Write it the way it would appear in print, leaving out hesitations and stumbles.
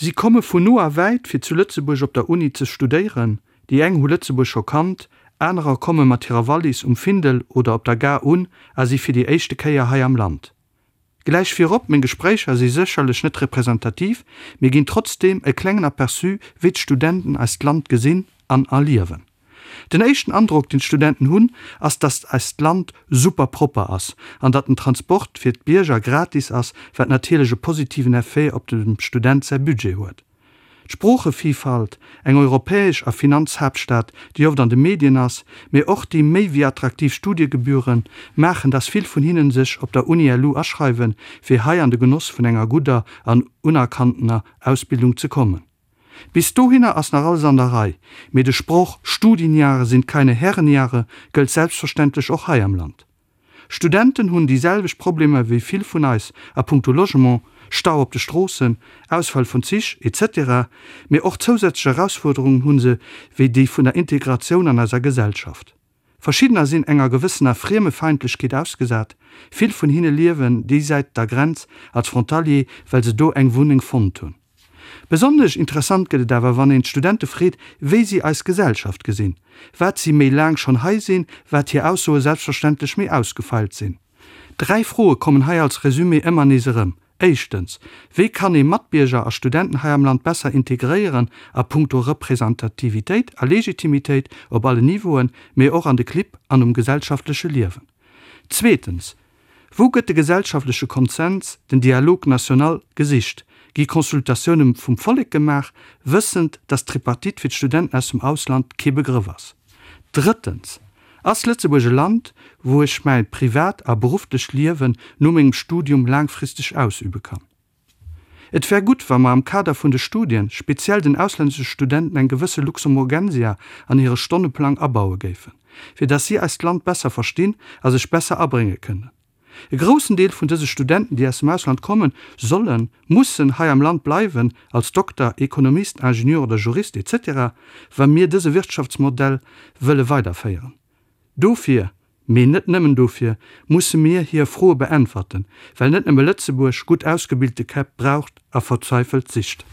Si komme vun no a wäit fir zu Lëtzebuerg op der Uni ze studéieren. Déi eng hu Lëtzebuerg scho kannt, anerer komme mat hirer Wallis um Findel oder op der Gare un a si fir déi éischte Kéier hei am Land. Gläich virop, meng Gespréicher si sécherlech net representativ, mee ginn trotzdeem e klengen Aperçu wéi d'Studenten eist Land gesinn an erliewen. Den éischten Androck deen d'Studenten hunn, ass datt eist Land super propper ass an datt den Transport fir d'Bierger gratis ass, wat natierlech e positiven Effet op dem Student säi Budget huet. D'Sproochevillfalt, eng europäesch a Finanzhaaptstad, déi oft an de Medien ass, mee och déi méi wéi attraktiv Studiegebühren, maachen, dass vill vun hinnen sech op der Uni LU aschreiwen, fir hei an de Genoss vun enger gudder an unerkanntener Ausbildung ze kommen. Bis dohinner ass nach alles an der Rei, mee de Sproch Studienjahre sind keine Herrenjahre gëllt selbstverständlech och hei am Land. Studenten hunn déi selwecht Problemer wéi vill vun eis a puncto Logement, Stau op de Stroossen, Ausfall vun Zich, etc. Mee och zousätzlech Erausfuerderungen hu se wéi déi vun der Integratioun an eiser Gesellschaft. Verschiddener sinn enger gewëssener Friemefeindlechkeet ausgesat, vill vun hinne liewen déi Säit der Grenz als Frontalier, well se do eng Wunneng fonnt hunn. Besonnesch interessant gëtt et awer, wann een d'Studente freet, wéi si eis Gesellschaft gesinn. Wat si méi laang schonn hei sinn, wat hir Aussoe selbstverständlech méi ausgefeilt sinn. Dräi Froe kommen hei als Resumé ëmmer nees erëm, Éischtens, wéi kann ee Matbierger a Studenten hei am Land besser integréieren a punkto Representativitéit a Legitimitéit op allen Niveauen, mee och an de Clibb an um gesellschaftleche Liewen? Zweetens, Wou gëtt de gesellschaftleche Konsens, den Dialogue national, gesicht? Gi Consultatioune vum Vollek gemaach, wëssend, datt d'Tripartite fir d'Studenten aus dem Ausland kee Begrëff ass? Drëttens, Ass Lëtzebuerg e Land, wou ech mäi privat a berufflecht Liewen no mengem Studium laangfristeg ausübe kann? Et wär gutt, wa mer am Kader vun de Studien, speziell den auslännesche Studenten eng gewësse Luxemburgensia an hire Stonneplang abaue géifen, fir dass si eist Land besser verstinn a sech besser abrénge kënnen. E groussen Deel vun dëse Studenten, déi aus dem Ausland kommen, sollen, mussen hei am Land bleiwen, als Dokter, Ekonomist, Ingenieur oder Jurist etc., wa mir dëse Wirtschaftsmodell wëlle weiderféieren. Dofir, mee net nëmmen dofir, musse mir hir Froe beäntwerten, well net nëmme Lëtzebuerg gutt ausgebilte Käpp braucht a verzweifelt sicht.